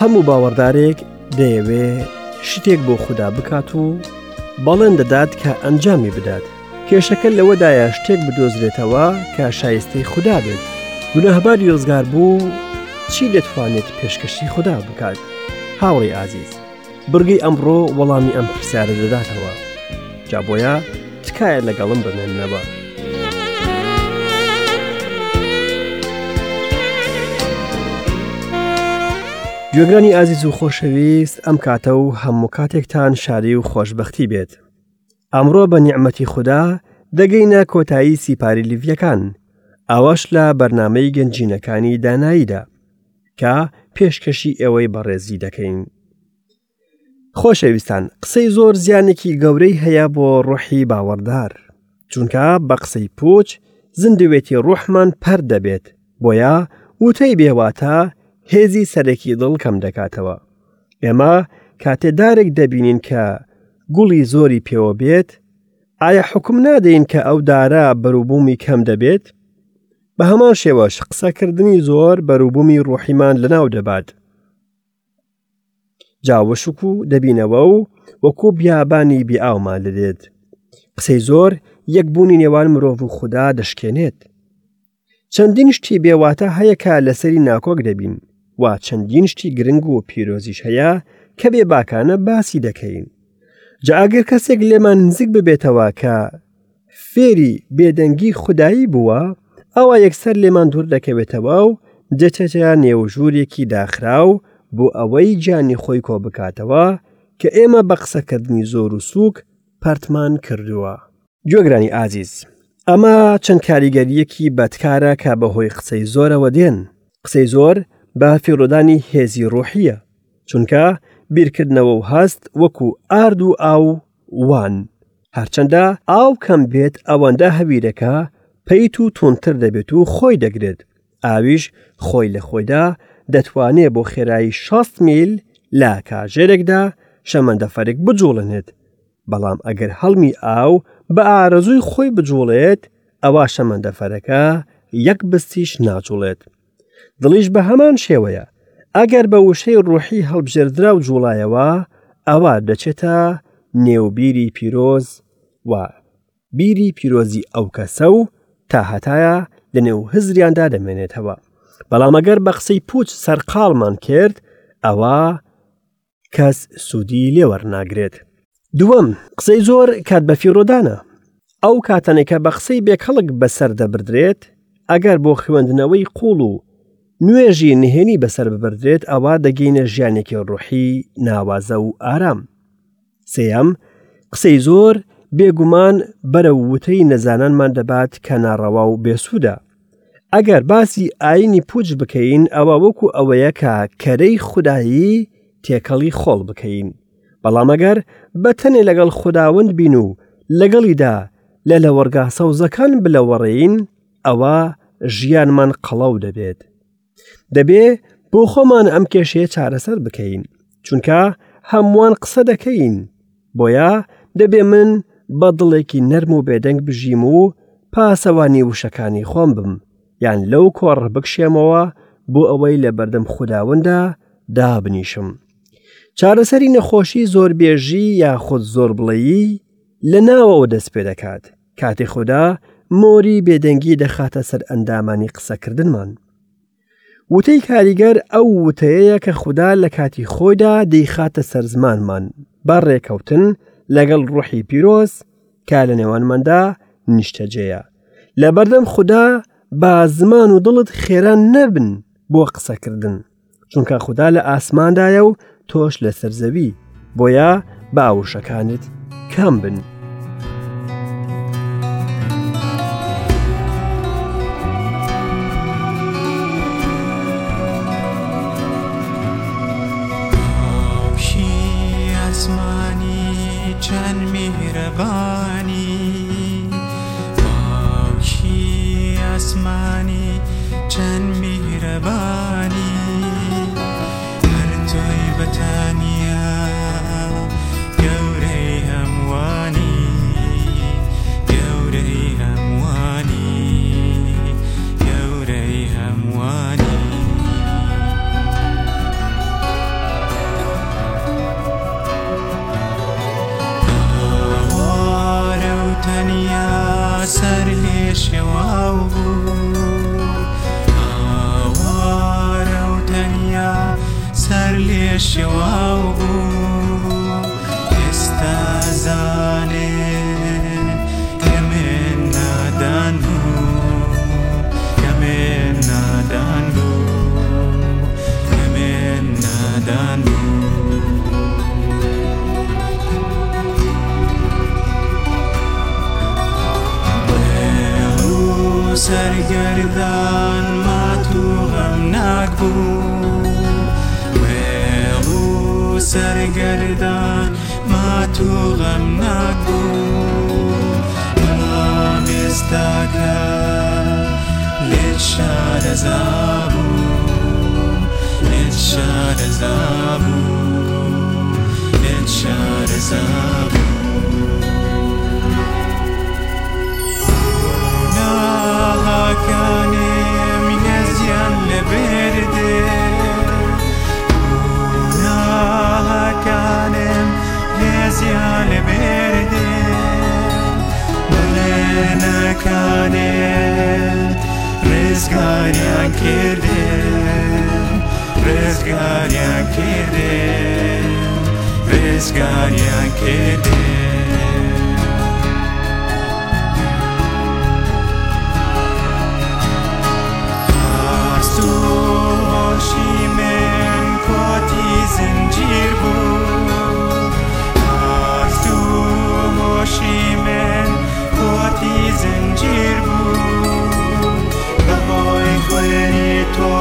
هەموو باوەڕدارێک دەیەوێ شتێک بۆ خودا بکات و بەڵێن دەدات کە ئەنجامی بدات. کێشەکە لەوەدایە شتێک بدۆزرێتەوە کە شایستەی خودا بێت. گوناهباری ڕزگار بوو چی دەتوانێت پێشکەشی خودا بکات؟ هاوڕێی ئازیز، بڕگەی ئەمڕۆ وەڵامی ئەم پرسیارە دەداتەوە. جا بۆیە تکایە لەگەڵم بمێننەوە. گوێگرانی ئازیز و خۆشەویست ئەم کاتە و هەموو کاتێکتان شاری و خۆشببختی بێت. ئەمڕۆ بە نیعممەتی خوددا دەگەینە کۆتایی سیپاری لیڤیەکان ئەوەش لە بەرنمەی گەنجینەکانی داناییدا کە پێشکەشی ئێوەی بەڕێزی دەکەین. خۆشەویستان قسەی زۆر زیانێکی گەورەی هەیە بۆ ڕۆحی باوەڕدار چونکە بە قسەی پوچ زیندوێتی ڕۆحمان پەر دەبێت بۆیە وتەی بێواتە هێزی سەرەکی دڵ کەم دەکاتەوە ئێمە کاتێ دارێک دەبینین کە گوڵی زۆری پێوە بێت ئایا حکم نادەین کە ئەو دارە بەروبوومی کەم دەبێت بە هەمان شێوەش قسەکردنی زۆر بەروبوومی ڕۆحیمان لەناو دەبات جا وشک و دەبینەوە و وەکو بیابانی بێئاومان لێدێت قسەی زۆر یەکبوونی نێوان مرۆڤ و خودا دەشکێنێت چەندین شتی بێواتە هەیە کە لەسەری ناکۆک دەبین و چەندین شتی گرنگ و پیرۆزیش هەیە کە بێ باکانە باسی دەکەین جا ئەگەر کەسێک لێمان نزیک ببێتەوە کە فێری بێدەنگی خودایی بووە، ئەوا یەکسەر لێمان دوور دەکەوێتەوە و دەچێتە نێو ژوورێکی داخراو بۆ ئەوەی گیانی خۆی کۆ بکاتەوە کە ئێمە بە قسەکردنی زۆر و سووک پەرتمان کردووە. گوێگرانی ئازیز، ئەمە چەند کاریگەرییەکی بەدکارە کە بەهۆی قسەی زۆرەوە دێن. قسەی زۆر بە فیڕۆدانی هێزی ڕۆحییە، چونکە بیرکردنەوە و هەست وەکو ئارد و ئاو وان. هەرچەندە ئاو کەم بێت ئەوەندە هەویرەکە پەیت و توندتر دەبێت و خۆی دەگرێت، ئاویش خۆی لە خۆیدا دەتوانێ بۆ خێرایی 60 میل لە کاژێرێکدا شەمەندەفەرێک بجوڵێنێت، بەڵام ئەگەر هەڵمی ئاو بە ئارەزووی خۆی بجوڵێت ئەوا شەمەندەفەرەکە یەک بستیش ناجوڵێت. دڵیش بە هەمان شێوەیە ئەگەر بە وشەی ڕوحی هەڵبژێردراو جوڵایەوە ئەوا دەچێتە نێو بیری پیرۆز و بیری پیرۆزی ئەو کەسە و تا هەتایە لە نێو هزریاندا دەمێنێتەوە بەڵام ئەگەر بە قسەی پوچ سەرقاڵمان کرد ئەوە کەس سوودی لێ وەرناگرێت. دووەم، قسەی زۆر کات بەفیڕۆدانە. ئەو کاتانەی کە بە قسەی بێکەڵک بەسەر دەبردرێت، ئەگەر بۆ خوێندنەوەی قووڵ و نوێژی نهێنی بەسەر ببردرێت ئەوا دەگەینە ژیانێکی ڕۆحی ناوازە و ئارام. سێیەم، قسەی زۆر بێگومان بەرەو وتەی نەزانانمان دەبات کە ناڕەوا و بێسوودە. ئەگەر باسی ئاینی پوچ بکەین ئەوە وەکو ئەوەیە کە کەرەی خودایی تێکەڵی خۆڵ بکەین بەڵام ئەگەر بە تەنێ لەگەڵ خوداوەند بین و لەگەڵیدا لە لەوەڕگا سەوزەکان بلەوەڕێین ئەوە ژیانمان قەڵەو دەبێت دەبێ بۆ خۆمان ئەم کێشەیە چارەسەر بکەین چونکە هەمووان قسە دەکەین بۆیە دەبێ من بە دڵێکی نەرم و بێدەنگ بژیم و پاسەوانی وشەکانی خۆم بم یان لەو کۆڕە بکشێمەوە بۆ ئەوەی لە بەردەم خوداوندا دابنیشم چارەسەری نەخۆشی زۆربێژی یاخود زۆر بڵێی لە ناوەوە دەست پێ دەکات کاتێ خودا مۆری بێدەنگی دەخاتە سەر ئەندامانی قسەکردنمان. وتەی کاریگەر ئەو وتەیەیە کە خودا لە کاتی خۆیدا دەیخاتە سەر زمانمان بە ڕێکەوتن لەگەڵ ڕۆحی پیرۆز کە لە نێوانماندا نیشتەجێیە. لەبەردەم خودا با زمان و دڵت خێرا نەبن بۆ قسەکردن. چونکە خودا لە ئاسماندایە و تۆش لەسەر زەوی بۆیە با وشەکانت کەم بن. ئاسمانی چەند میهرەبانی باوکی ئاسمانی چەند میهرەبانی هەر تۆی بە تەنیا گەورەی هەمووانی گەورەی هەمووانی گەورەی هەمووانی. لێ شێواو بوو ئاوارە و تەنیا سەر لێ شێواو بوو ئێستا زانێ کە من نادان بوو کە من نادان بوو کە من نادان بوو. وێڵ و سەرگەردان مات و غەمناک بوو وێڵ و سەرگەردان مات و غەمناک بوو بەڵام ئێستاکە لێت شارەزا بوو لێت شارەزا بوو لێت شارەزا بوو. گوناهەکانم لێزیان لەبەردێ گوناهەکانم لێزیان لەبەردێ بەڵێنەکانت ڕزگاریان کردم ڕزگاریان کردم ڕزگاریان کردم. هەست و هۆشی من کۆتی زنجیر بوو هەست و هۆشی من کۆتی زنجیر بوو بەهۆی خوێنی تۆ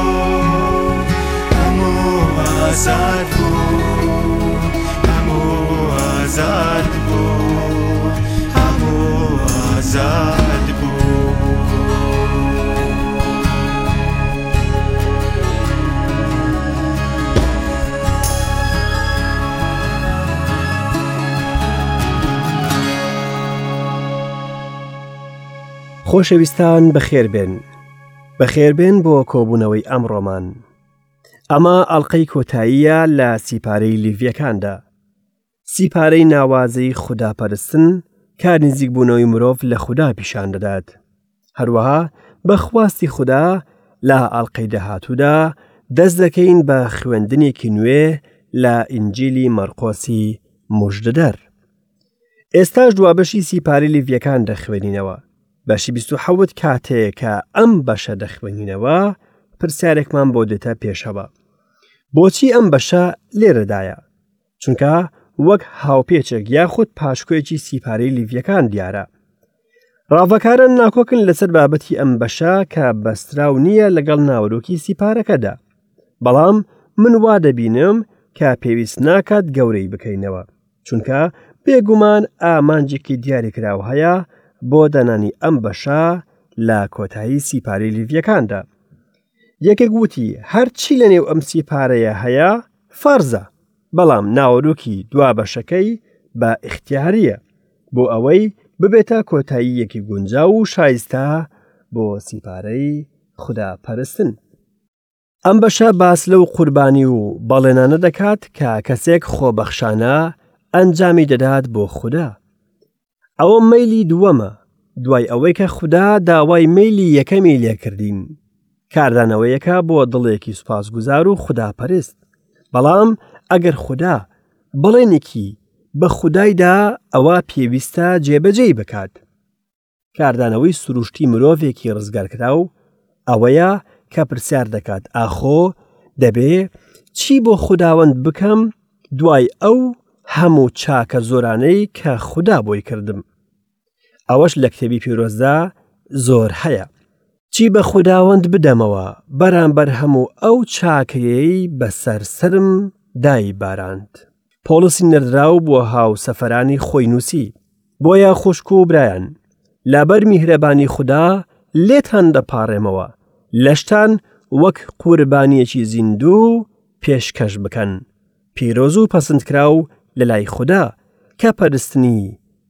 هەموو ئازاد بوو هەموو ئازاد بوو هەموو ئازاد بوو. خۆشەویستان بەخێربێن بەخێربێن بۆ کۆبوونەوەی ئەمڕۆمان ئەمە ئەڵلقەی کۆتاییە لە سیپارەی لیڤیەکاندا سیپارەی ناوازەی خوداپەرستن کار نزیکبوونەوەی مرۆڤ لە خودا پیشان دەدات. هەروەها بە خواستی خودا لە ئەڵقەی داهاتوودا دەست دەکەین بە خوێندنێکی نوێ لە ئینجیلی مەرقۆسی مژدەدەر. ئێستاش دوا بەشی سیپاری لیڤیەکان دەخوێنینەوە. بەشی 27 کاتێ کە ئەم بەشە دەخوێنینەوە پرسیارێکمان بۆ دێتە پێشەوە. بۆچی ئەم بەشە لێرەدایە؟ چونکە وەک هاوپێچێک یاخود پاشکۆیەکی سیپارەی لیڤیەکان دیارە. ڕاڤەکاران ناکۆکن لەسەر بابەتی ئەم بەشە کە بەستراو نییە لەگەڵ ناوەرۆکی سیپارەکەدا. بەڵام من وا دەبینم کە پێویست ناکات گەورەی بکەینەوە، چونکە بێگومان ئامانجێکی دیاریکراو هەیە بۆ دانانی ئەم بەشە لە کۆتایی سیپارەی لیڤیەکاندا. یەکێک وتی هەرچی لەنێو ئەم سیپارەیە هەیە فەرزە، بەڵام ناوەرۆکی دوا بەشەکەی بە ئیختیارییە، بۆ ئەوەی ببێتە کۆتاییەکی گونجاو و شایستە بۆ سیپارەی خودا پەرستن. ئەم بەشە باس لەو قوربانی و بەڵێنانە دەکات کە کەسێک خۆبەخشانە ئەنجامی دەدات بۆ خودا. ئەوە مەیلی دووەمە دوای ئەوەی کە خودا داوای مەیلی یەکەمی لێکردین کاردانەوەیەکە بۆ دڵێکی سوپاسگوزار و خوداپەرست بەڵام ئەگەر خودا بەڵێنێکی بە خودایدا ئەوە پێویستە جێبەجێی بکات کاردانەوەی سروشتی مرۆڤێکی ڕزگارکراو ئەوەیە کە پرسیار دەکات ئاخۆ دەبێ چی بۆ خوداوەند بکەم دوای ئەو هەموو چاکە زۆرانەی کە خودا بۆی کردم ئەوەش لە کتێبی پیرۆزدا زۆر هەیە چی بە خوداوەند بدەمەوە بەرامبەر هەموو ئەو چاکەیەی بەسەر سەرم دای باراند پۆڵسی نێردراو بۆ هاوسەفەرانی خۆی نووسی بۆیە خوشک و برایان لەبەر میهرەبانی خودا لێتان دەپاڕێمەوە لەشتان وەک قوربانیەکی زیندوو پێشکەش بکەن پیرۆز و پەسندکراو لە لای خودا کە پەرستنی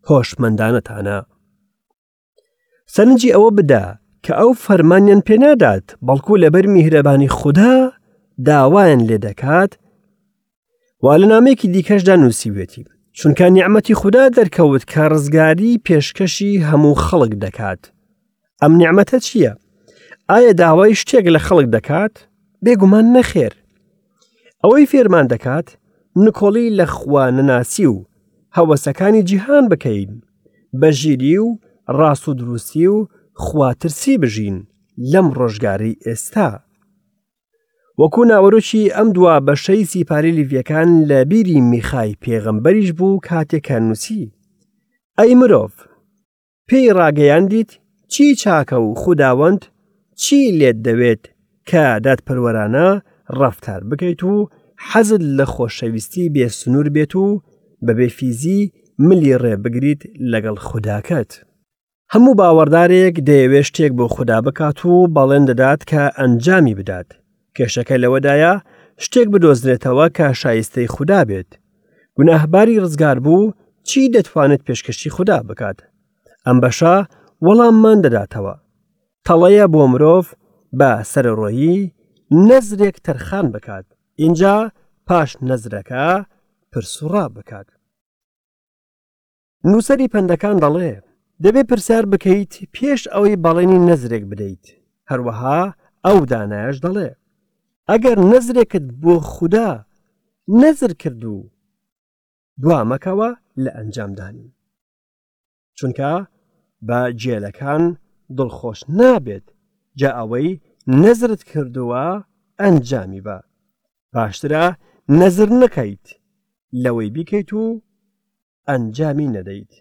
هۆشمەندانەتانە. سەرنجی ئەوە بدە کە ئەو فەرمانیان پێنادات بەڵکو لەبەر میهرەبانی خودا داوایان لێ دەکات وا لە نامێکی دیکەشدا نووسیوێتی چونکە نیعممەتی خودا دەرکەوت کە ڕزگاری پێشکەشی هەموو خەڵک دەکات. ئەم نیعمەتە چییە؟ ئایا داوای شتێک لە خەڵک دەکات؟ بێگومان نەخێر. ئەوەی فێرمان دەکات نکۆڵی لە خوا نەناسی و هەوەسەکانی جیهان بکەین، بە ژیری و ڕاست و دروستی و خواترسی بژین لەم ڕۆژگارەی ئێستا. وەکو ناوەرۆکی ئەم دوا بەشەی سیپاری لیڤیەکان لە بیری میخای پێغەمبەریش بوو کاتێک کە نووسی ئەی مرۆڤ پێی ڕاگەیاندیت چی چاکە و خوداوەند چی لێت دەوێت کە دادپەروەرانە ڕەفتار بکەیت و حەزت لە خۆشەویستی بێ سنوور بێت و بەبێ فیزی ملی ڕێ بگریت لەگەڵ خوداکەت. هەموو باوەڕدارێک دەیەوێت شتێک بۆ خودا بکات و بەڵێن دەدات کە ئەنجامی بدات. کێشەکە لەوەدایە شتێک بدۆزرێتەوە کە شایستەی خودا بێت. گوناهباری ڕزگاربوو چی دەتوانێت پێشکەشی خودا بکات؟ ئەم بەشە وەڵاممان دەداتەوە. تەڵەیە بۆ مرۆڤ بە سەرەڕۆیی نەزرێک تەرخان بکات، ئینجا پاش نەزرەکە پرسوڕا بکات. نووسەری پەندەکان دەڵێ، دەبێ پرسیار بکەیت پێش ئەوەی بەڵێنی نەزرێک بدەیت، هەروەها ئەو دانایەش دەڵێ، ئەگەر نەزرێکت بۆ خودا نەزر کرد و دوا مەکەوە لە ئەنجامدانی. چونکە بە گێلەکان دڵخۆش نابێت، جا ئەوەی نەزرت کردووە ئەنجامی بە. باشترە نەزر نەکەیت لەوەی بیکەیت و ئەنجامی نەدەیت.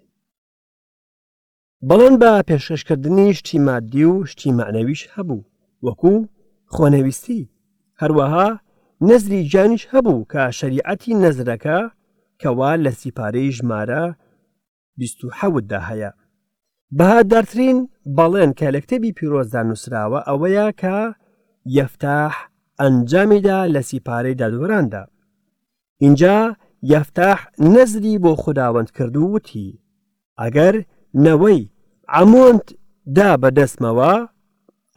بەڵێن بە پێشکەشکردنی شتی مادی و شتی مەعنەویش هەبوو وەکو خۆنەویستی، هەروەها نەزری گیانیش هەبوو کە شەریعەتی نەزرەکە کەوا لە سیپارەی ژمارە 27 دا هەیە. بەهادارترین بەڵێن کە لە کتێبی پیرۆزدا نووسراوە ئەوەیە کە یەفتاح ئەنجامیدا لە سیپارەی دادوەراندا. ئینجا یەفتاح نەزری بۆ خوداوەند کرد و وتی، ئەگەر نەوەی عەمۆنت دا بە دەستمەوە،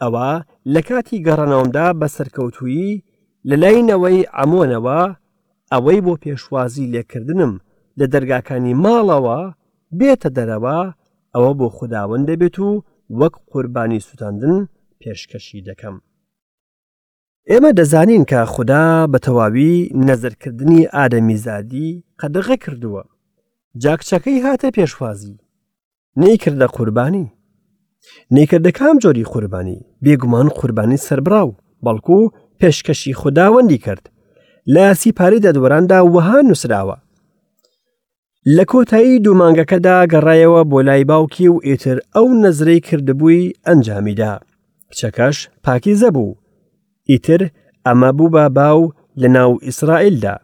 ئەوا لە کاتی گەڕانەوەمدا بە سەرکەوتوویی لە لای نەوەی عەمۆنەوە، ئەوەی بۆ پێشوازی لێکردنم لە دەرگاکانی ماڵەوە بێتە دەرەوە، ئەوە بۆ خوداوەند دەبێت و وەک قوربانی سووتاندن پێشکەشی دەکەم. ئێمە دەزانین کە خودا بە تەواوی نەزرکردنی ئادەمیزادی قەدەغە کردووە. جا کچەکەی هاتە پێشوازی. نەیکردە قوربانی. نەیکردە کام جۆری قوربانی؟ بێگومان قوربانی سەربڕاو، بەڵکو پێشکەشی خوداوەندی کرد. لە سیپاری دادوەراندا وەها نووسراوە. لە کۆتایی دوو مانگەکەدا گەڕایەوە بۆ لای باوکی و ئیتر ئەو نەزرەی کردبووی ئەنجامیدا. کچەکەش پاکیزە بوو. ئیتر ئەمە بوو بە باو لە ناو ئیسرائیلدا،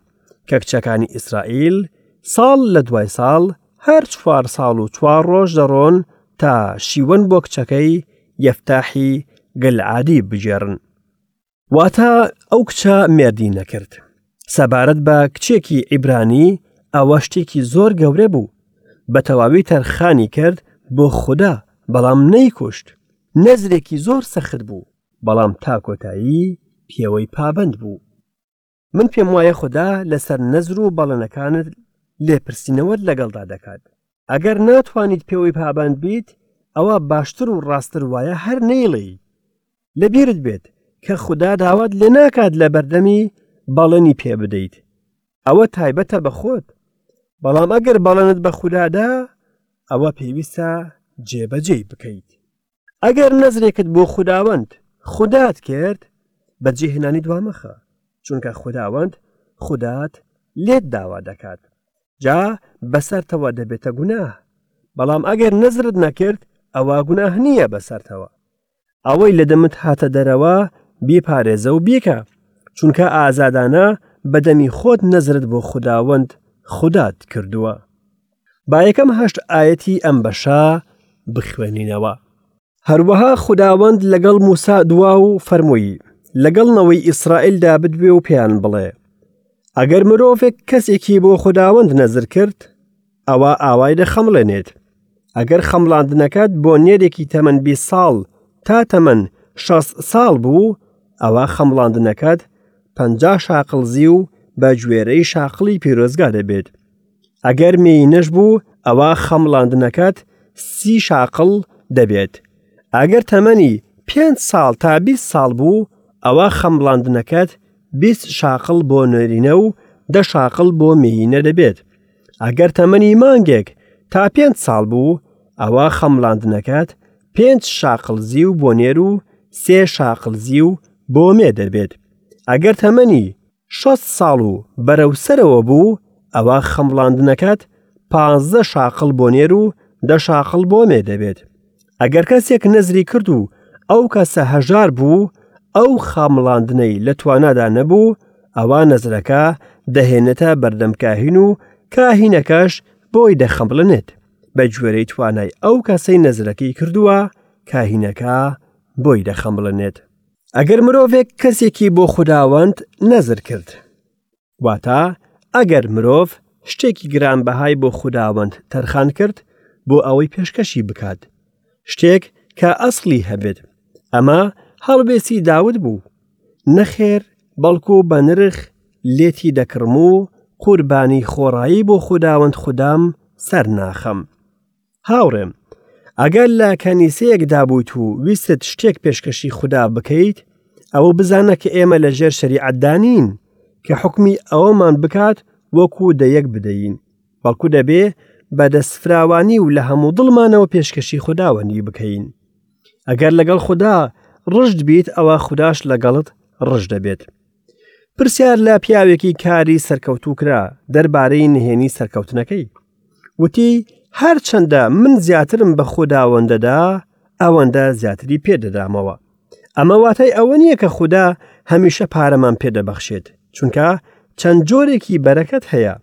کە کچەکانی ئیسرائیل ساڵ لە دوای ساڵ هەر چوار ساڵ و چوار ڕۆژ دەڕۆن تا شیوەن بۆ کچەکەی یەفتاحی گلعادی بگێڕن. واتە ئەو کچە مێردی نەکرد. سەبارەت بە کچێکی عیبرانی ئەوە شتێکی زۆر گەورە بوو. بە تەواوی تەرخانی کرد بۆ خودا، بەڵام نەیکوشت. نەزرێکی زۆر سەخت بوو، بەڵام تا کۆتایی پێوەی پابەند بوو. من پێم وایە خودا لەسەر نەزر و بەڵێنەکانت لێپرسینەوەت لەگەڵدا دەکات. ئەگەر ناتوانیت پێوەی پابەند بیت، ئەوە باشتر و ڕاستتر وایە هەر نەیڵێی. لەبیرت بێت کە خودا داوات لێ ناکات لە بەردەمی بەڵێنی پێ بدەیت. ئەوە تایبەتە بە خۆت. بەڵام ئەگەر بەڵێنت بە خودا دا، ئەوە پێویستە جێبەجێی بکەیت. ئەگەر نەزرێکت بۆ خوداوەند خودات کرد، بەجێهێنانی دوامەخە، چونکە خوداوەند خودات لێت داوا دەکات. جا بەسەرتەوە دەبێتە گوناه. بەڵام ئەگەر نەزرت نەکرد، ئەوا گوناه نییە بەسەرتەوە. ئەوەی لە دەمت هاتە دەرەوە بیپارێزە و بیکە، چونکە ئازادانە بە دەمی خۆت نەزرت بۆ خوداوەند خودات کردووە. با یەکەم هەشت ئایەتی ئەم بەشە بخوێنینەوە. هەروەها خوداوەند لەگەڵ موسا دوا و فەرمووی، لەگەڵ نەوەی ئیسرائیلدا بدوێ و پێیان بڵێ، ئەگەر مرۆڤێک کەسێکی بۆ خوداوەند نەزر کرد، ئەوا ئاوای دەخەمڵێنێت. ئەگەر خەمڵاندنەکەت بۆ نێرێکی تەمەن 20 ساڵ تا تەمەن 60 ساڵ بوو، ئەوا خەمڵاندنەکەت 50 شاقڵ زیو بە گوێرەی شاقڵی پیرۆزگا دەبێت. ئەگەر مێینەش بوو ئەوا خەمڵاندنەکەت سی شاقڵ دەبێت. ئەگەر تەمەنی پێنج ساڵ تا 20 ساڵ بوو ئەوە خەمڵاندنەکەت 20 شاقڵ بۆ نێرینە و دە شاقڵ بۆ مێینە دەبێت. ئەگەر تەمەنی مانگێک تا پێنج ساڵ بوو ئەوە خەمڵاندنەکەت پێنج شاقڵ زیو بۆ نێر و سێ شاقڵ زیو بۆ مێ دەبێت. ئەگەر تەمەنی 60 ساڵ و بەرەو سەرەوە بوو ئەوە خەمڵاندنەکەت پازدە شاقڵ بۆ نێر و دە شاقڵ بۆ مێ دەبێت. ئەگەر کەسێک نەزری کرد و ئەو کەسە هەژار بوو ئەو خامڵاندنەی لە توانادا نەبوو ئەوا نەزرەکە دەهێنێتە بەردەم کاهین و کاهینەکەش بۆی دەخەمڵێنێت بە گوێرەی توانای ئەو کەسەی نەزرەکەی کردووە کاهینەکە بۆی دەخەمڵێنێت. ئەگەر مرۆڤێک کەسێکی بۆ خوداوەند نەزر کرد واتە ئەگەر مرۆڤ شتێکی گرانبەهای بۆ خوداوەند تەرخان کرد بۆ ئەوەی پێشکەشی بکات شتێک کە ئەسڵی هەبێت ئەمە هەڵوێستی داود بوو نەخێر بەڵکو بە نرخ لێتی دەکڕم و قوربانی خۆڕایی بۆ خوداوەند خودام سەر ناخەم هاوڕێم، ئەگەر لە کەنیسەیەکدا بوویت و ویستت شتێک پێشکەشی خودا بکەیت، ئەوە بزانە کە ئێمە لە ژێر شەریعەتدا نین کە حوکمی ئەوەمان بکات وەکو دەیەک بدەین، بەڵکو دەبێ بە دەستفراوانی و لە هەموو دڵمانەوە پێشکەشی خوداوەندی بکەین. ئەگەر لەگەڵ خودا ڕژد بیت ئەوە خوداش لەگەڵت ڕژد دەبێت. پرسیار لە پیاوێکی کاری سەرکەوتوو کرا دەربارەی نهێنی سەرکەوتنەکەی. وتی هەرچەندە من زیاترم بە خوداوەندەدا ئەوەندە زیاتری پێدەدامەوە. ئەمە واتای ئەوە نییە کە خودا هەمیشە پارەمان پێدەبەخشێت چونکە چەند جۆرێکی بەرەکەت هەیە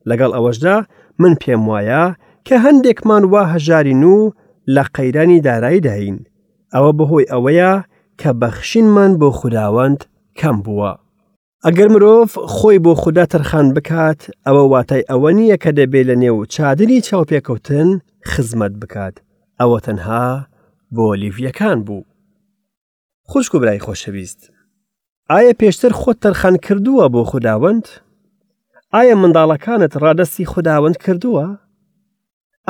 لەگەڵ ئەوەشدا من پێم وایە کە هەندێکمان وا هەژارین و لە قەیرانی داراییداین ئەوە بەهۆی ئەوەیە کە بەخشینمان بۆ خوداوەند کەم بووە. ئەگەر مرۆڤ خۆی بۆ خودا تەرخان بکات، ئەوە واتای ئەوە نییە کە دەبێ لە نێو چادری چاوپێکەوتن خزمەت بکات، ئەوە تەنها بۆ لیڤییەکان بوو. خوشک و برای خۆشەویست، ئایا پێشتر خۆت تەرخان کردووە بۆ خوداوەند؟ ئایا منداڵەکانت ڕادەستی خوداوەند کردووە؟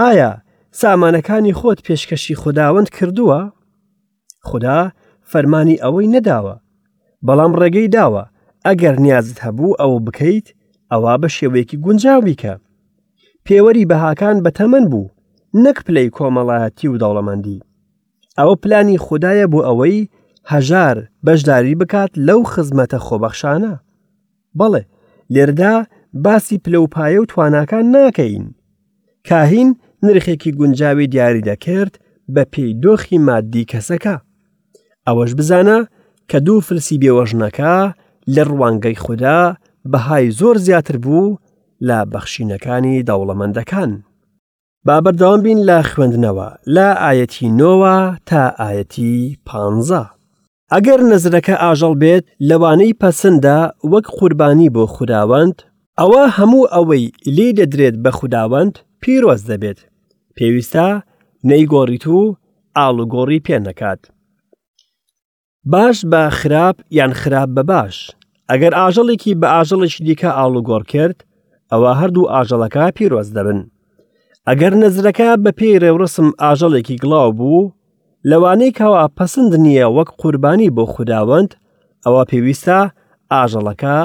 ئایا سامانەکانی خۆت پێشکەشی خوداوەند کردووە؟ خودا فەرمانی ئەوەی نەداوە، بەڵام ڕێگەی داوە ئەگەر نیازت هەبوو ئەوە بکەیت ئەوا بە شێوەیەکی گونجاو بیکە. پێوەری بەهاکان بە تەمەن بوو نەک پلەی کۆمەڵایەتی و دەوڵەمەندی. ئەوە پلانی خودایە بۆ ئەوەی هەژار بەشداری بکات لەو خزمەتە خۆبەخشانە. بەڵێ لێردا باسی پلە و پایە و تواناکان ناکەین. کاهین نرخێکی گونجاوی دیاری دەکرد بە پێی دۆخی مادی کەسەکە. ئەوەش بزانە کە دوو فلسی بێوەژنەکە لە ڕوانگەی خودا بەهای زۆر زیاتر بوو لە بەخشینەکانی دەوڵەمەندەکان. با بەردەوام بین لە خوێندنەوە لە ئایەتی نۆوە تا ئایەتی پانزە. ئەگەر نەزرەکە ئاژەڵ بێت لەوانەی پەسندە وەک قوربانی بۆ خوداوەند، ئەوا هەموو ئەوەی لێی دەدرێت بە خوداوەند پیرۆز دەبێت، پێویستە نەیگۆڕیت و ئاڵوگۆڕی پێ نەکات. باش بە خراپ یان خراپ بە باش، ئەگەر ئاژەڵێکی بە ئاژەڵێکی دیکە ئاڵوگۆڕ کرد، ئەوا هەردوو ئاژەڵەکە پیرۆز دەبن. ئەگەر نەزرەکە بە پێی ڕێوڕەسم ئاژەڵێکی گڵاو بوو، لەوانەی کەوا پەسند نییە وەک قوربانی بۆ خوداوەند، ئەوا پێویستە ئاژەڵەکە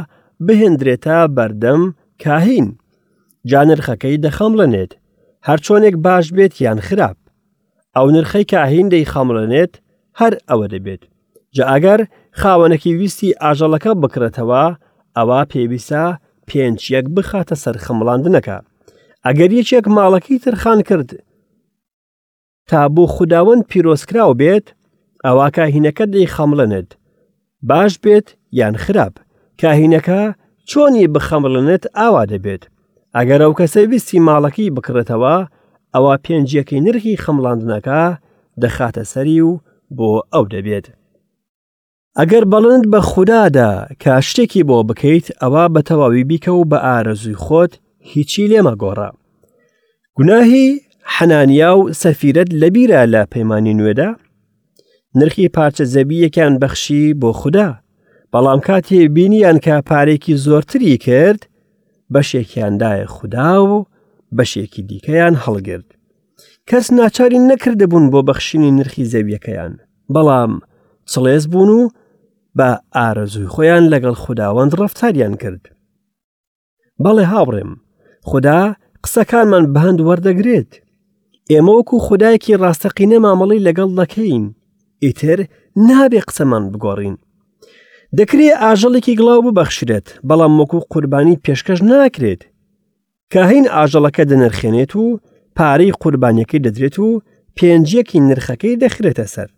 بهێندرێتە بەردەم کاهین، جا نرخەکەی دەخەمڵێنێت، هەرچۆنێک باش بێت یان خراپ. ئەو نرخەی کاهین دەیخەمڵێنێت هەر ئەوە دەبێت. جا ئەگەر خاوەنەکەی ویستی ئاژەڵەکە بکڕێتەوە، ئەوا پێویستە پێنج یەک بخاتە سەر خەمڵاندنەکە. ئەگەر یەکێک ماڵەکەی تەرخان کرد تا بۆ خوداوەند پیرۆزکراو بێت، ئەوا کاهینەکە دەیخەمڵێنێت، باش بێت یان خراپ، کاهینەکە چۆنی بخەمڵێنێت ئاوا دەبێت. ئەگەر ئەو کەسە ویستی ماڵەکەی بکڕێتەوە، ئەوا پێنجیەکەی نرخی خەمڵاندنەکە دەخاتە سەری و بۆ ئەو دەبێت. ئەگەر بەڵێنت بە خودا دا کە شتێکی بۆ بکەیت، ئەوا بە تەواوی بیکە و بە ئارەزووی خۆت هیچی لێ مەگۆڕە. گوناهی حەنانیا و سەفیرەت لەبیرە لە پەیمانی نوێدا؟ نرخی پارچە زەوییەکیان بەخشی بۆ خودا، بەڵام کاتێ بینیان کە پارێکی زۆرتری کرد، بەشێکیان دایە خودا و بەشێکی دیکەیان هەڵگرت. کەس ناچاری نەکردبوون بۆ بەخشینی نرخی زەویەکەیان بەڵام چڵێز بوون و بە ئارەزووی خۆیان لەگەڵ خوداوەند ڕەفتاریان کرد. بەڵێ هاوڕێم خودا قسەکانمان بەهەند وەردەگرێت ئێمە وەکو خودایەکی ڕاستەقینە مامەڵی لەگەڵ دەکەین ئیتر نابێ قسەمان بگۆڕین دەکرێ ئاژەڵێکی گڵاو ببەخشرێت بەڵام وەکو قوربانی پێشکەش ناکرێت کاهین ئاژەڵەکە دەنرخێنێت و پارەی قوربانیەکەی دەدرێت و پێنجیەکی نرخەکەی دەخرێتە سەر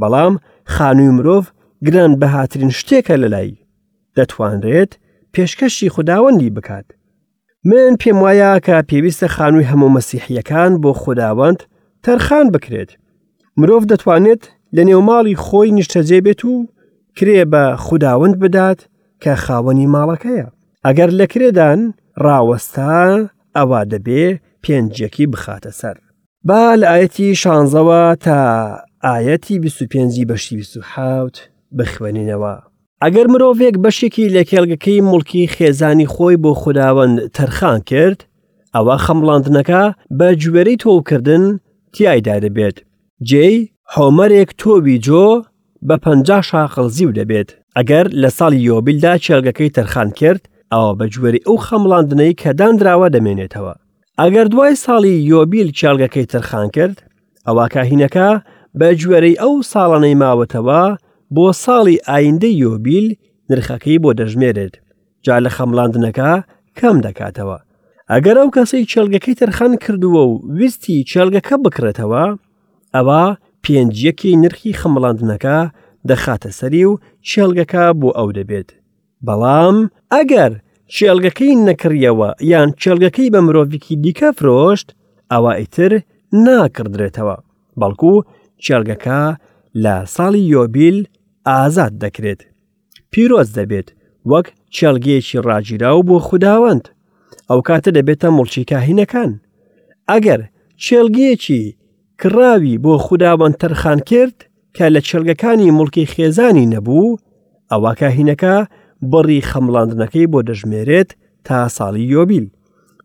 بەڵام خانووی مرۆڤ گران بەهاترین شتێکە لەلای دەتوانرێت پێشکەشی خوداوەندی بکات. من پێم وایە کە پێویستە خانووی هەموو مەسیحیەکان بۆ خوداوەند تەرخان بکرێت. مرۆڤ دەتوانێت لە نێوماڵی خۆی نیشتەجێ بێت و کرێ بە خوداوەند بدات کە خاوەنی ماڵەکەیە. ئەگەر لە کرێدان ڕاوەستا ئەوا دەبێ پێنجیەکی بخاتە سەر. با لە ئایەتی شانزەوە تا ئایەتی 25 بەشی 27 بخوێنینەوە. ئەگەر مرۆڤێک بەشێکی لە کێڵگەکەی موڵکی خێزانی خۆی بۆ خوداوەند تەرخان کرد، ئەوە خەمڵاندنەکە بە گوێرەی تۆوکردن تیایدا دەبێت. جێی حۆمەرێک تۆوی جۆ بە 50 شاقڵ زیو دەبێت. ئەگەر لە ساڵی یۆبیلدا کێڵگەکەی تەرخان کرد، ئەوە بە گوێرەی ئەو خەمڵاندنەی کە دانراوە دەمێنێتەوە. ئەگەر دوای ساڵی یۆبیل کێڵگەکەی تەرخان کرد، ئەوا کاهینەکە بە گوێرەی ئەو ساڵانەی ماوەتەوە بۆ ساڵی ئایندەی یۆبیل نرخەکەی بۆ دەژمێرێت جا لە خەمڵاندنەکە کەم دەکاتەوە ئەگەر ئەو کەسەی کێڵگەکەی تەرخان کردووە و ویستی کێڵگەکە بکڕێتەوە ئەوە پێنجیەکی نرخی خەمڵاندنەکە دەخاتە سەری و کێڵگەکە بۆ ئەو دەبێت بەڵام ئەگەر کێڵگەکەی نەکڕیەوە یان کێڵگەکەی بە مرۆڤێکی دیکە فرۆشت ئەوا ئیتر ناکڕدرێتەوە بەڵکو کێڵگەکە لە ساڵی یۆبیل ئازاد دەکرێت پیرۆز دەبێت وەک کێڵگەیەکی ڕاگیراو بۆ خوداوەند ئەو کاتە دەبێتە موڵکی کاهینەکان ئەگەر کێڵگەیەکی کڕاوی بۆ خوداوەند تەرخان کرد کە لە کێڵگەکانی موڵکی خێزانی نەبوو، ئەوا کاهینەکە بڕی خەمڵاندنەکەی بۆ دەژمێرێت تا ساڵی یۆبیل.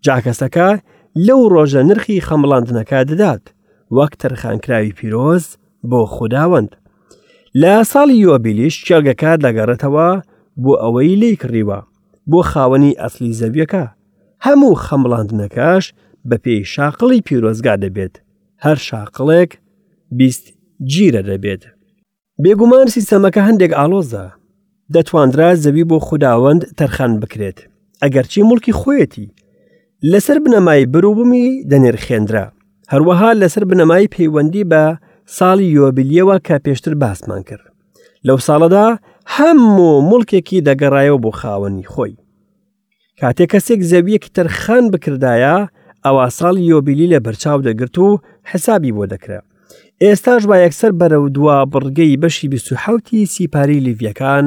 جا کەسەکە لەو ڕۆژە نرخی خەمڵاندنەکە دەدات، وەک تەرخانکراوی پیرۆز بۆ خوداوەند. لە ساڵی یۆبیلیش کێڵگەکە دەگەڕێتەوە بۆ ئەوەی لێی کڕیوە، بۆ خاوەنی ئەسلی زەویەکە. هەموو خەمڵاندنەکەش بەپێی شاقڵی پیرۆزگا دەبێت، هەر شاقڵێک 20 جیرە دەبێت. بێگومان سیستەمەکە هەندێک ئاڵۆزە، دەتواندرا زەوی بۆ خوداوەند تەرخان بکرێت، ئەگەرچی موڵکی خۆیەتی، لەسەر بنەمای بەروبوومی دەنرخێنرا، هەروەها لەسەر بنەمای پەیوەندی بە ساڵی یۆبیلیەوە کە پێشتر باسمان کرد. لەو ساڵەدا هەموو موڵکێکی دەگەڕایەوە بۆ خاوەنی خۆی. کاتێک کەسێک زەویەکی تەرخان بکردایە ئەوا ساڵی یۆبیلی لە بەرچاو دەگرت و حسابی بۆ دەکرا ئێستاش با یەکسەر بەرەو دوا بڕگەی بەشی 27 سیپاری لیڤیەکان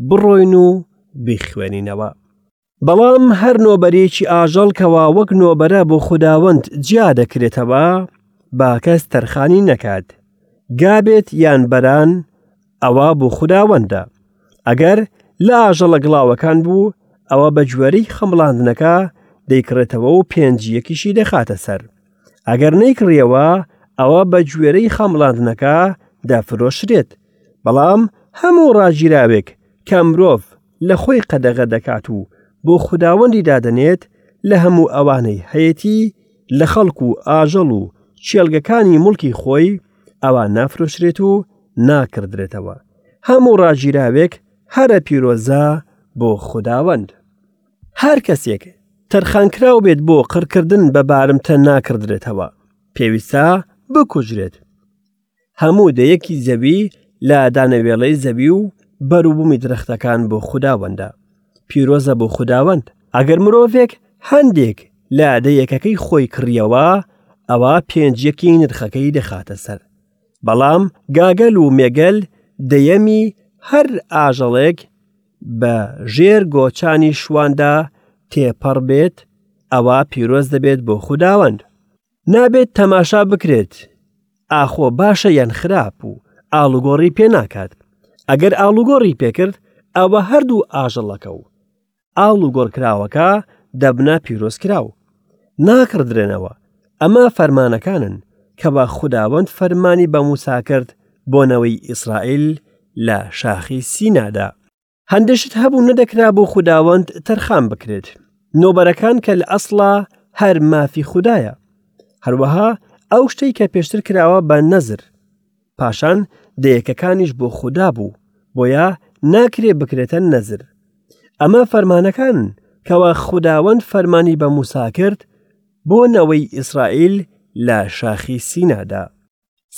بڕۆین و بیخوێنینەوە. بەڵام هەر نۆبەرێکی ئاژەڵ کەوا وەک نۆبەرە بۆ خوداوەند جیا دەکرێتەوە با کەس تەرخانی نەکات گا بێت یان بەران ئەوە بۆ خوداوەندە. ئەگەر لە ئاژەڵە گڵاوەکان بوو، ئەوە بە گوێرەی خەمڵاندنەکە دەیکڕێتەوە و پێنجیەکیشی دەخاتە سەر. ئەگەر نەیکڕیەوە، ئەوە بە گوێرەی خەمڵاندنەکە دەفرۆشرێت. بەڵام هەموو ڕاگیراوێک کە مرۆڤ لە خۆی قەدەغە دەکات و بۆ خوداوەندی دادەنێت، لە هەموو ئەوانەی هەیەتی، لە خەڵک و ئاژەڵ و کێڵگەکانی موڵکی خۆی، ئەوا نافرۆشرێت و ناکڕدرێتەوە. هەموو ڕاگیراوێک هەرە پیرۆزە بۆ خوداوەند. هەر کەسێک تەرخانکراو بێت بۆ قڕکردن بە بارمتە ناکڕدرێتەوە، پێویستە بکوژرێت. هەموو دەیەکی زەوی لە دانەوێڵەی زەوی و بەروبوومی درەختەکان بۆ خوداوەندە. پیرۆزە بۆ خوداوەند. ئەگەر مرۆڤێک هەندێک لە دەیەکەکەی خۆی کڕیەوە، ئەوا پێنجیەکی نرخەکەی دەخاتە سەر. بەڵام گاگەل و مێگەل دەیەمی هەر ئاژەڵێک بە ژێر گۆچانی شواندا تێپەڕ بێت، ئەوا پیرۆز دەبێت بۆ خوداوەند. نابێت تەماشا بکرێت ئاخۆ باشە یان خراپ و ئاڵوگۆڕی پێ ناکات. ئەگەر ئاڵوگۆڕی پێکرد ئەوە هەردوو ئاژەڵەکە و ئاڵوگۆڕکراوەکە دەبنە پیرۆزکراو. ناکڕدرێنەوە. ئەمە فەرمانەکانن کەوا خوداوەند فەرمانی بە موسا کرد بۆ نەوەی ئیسرائیل لە شاخی سینادا. هەندێک شت هەبوو نەدەکرا بۆ خوداوەند تەرخان بکرێت. نۆبەرەکان کە لە ئەسڵا هەر مافی خودایە. هەروەها ئەو شتەی کە پێشتر کراوە بە نەزر. پاشان دەیەکەکانیش بۆ خودا بوو، بۆیە ناکرێ بکرێتە نەزر. ئەمە فەرمانەکانن کەوا خوداوەند فەرمانی بە موسا کرد بۆ نەوەی ئیسرائیل لە شاخی سینادا.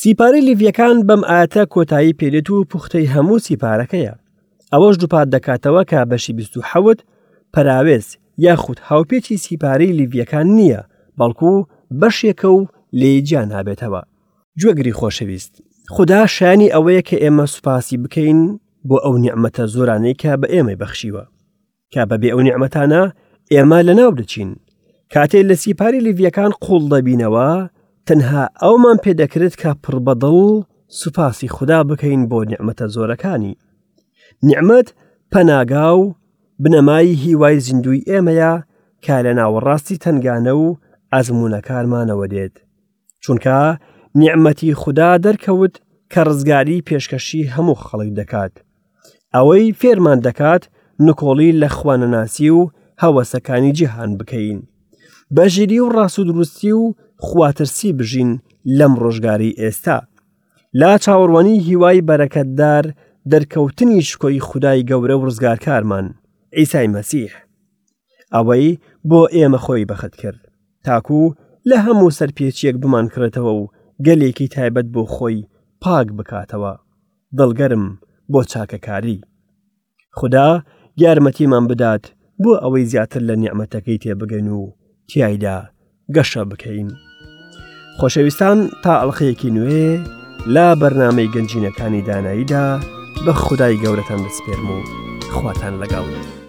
سیپارەی لیڤیەکان بەم ئاەتە کۆتایی پێدێت و پوختەی هەموو سیپارەکەیە. ئەوەش دووپات دەکاتەوە کە بەشی 27 پەراوێز یاخود هاوپێچی سیپارەی لیڤیەکان نییە، بەڵکو بەشێکە و لێی جیا نابێتەوە. گوێگری خۆشەویست، خودا شایانی ئەوەیە کە ئێمە سوپاسی بکەین بۆ ئەو نیعمەتە زۆرانەی کە بە ئێمەی بەخشیوە. کە بەبێ ئەو نیعمەتانە ئێمە لەناو دەچین. کاتێ لە سیپاری لیڤیەکان قوڵ دەبینەوە، تەنها ئەومان پێدەکرێت کە پڕ بەدڵ سوپاسی خودا بکەین بۆ نیعمەتە زۆرەکانی. نیعمەت پەناگا و بنەمای هیوای زیندووی ئێمەیە کە لە ناوەڕاستی تەنگانە و ئەزموونەکانمانەوە دێت. چونکە نیعمەتی خودا دەرکەوت کە ڕزگاری پێشکەشی هەموو خەڵک دەکات. ئەوەی فێرمان دەکات نکۆڵی لە خوانەناسی و هەوەسەکانی جیهان بکەین. بە ژیری و ڕاست و دروستی و خواترسی بژین لەم ڕۆژگاری ئێستا. لا چاوەڕوانی هیوای بەرەکەتدار دەرکەوتنی شکۆی خودای گەورە و ڕزگارکارمان، عیسای مەسیح. ئەوەی بۆ ئێمە خۆی بەخت کرد تاکو لە هەموو سەرپێچیەک بمانکڕێتەوە و گەلێکی تایبەت بۆ خۆی پاک بکاتەوە دڵگەرم بۆ چاکەکاری خدا یارمەتیمان بدات بۆ ئەوەی زیاتر لە نیعممەتەکەی تێبگەین و تیایدا گەشە بکەین. خۆشەویستان تا ئەڵلقەیەکی نوێ لە بەرنمەی گەنجینەکانی داناییدا بە خودای گەورەتان دەسپێرم و خواتان لەگەڵ.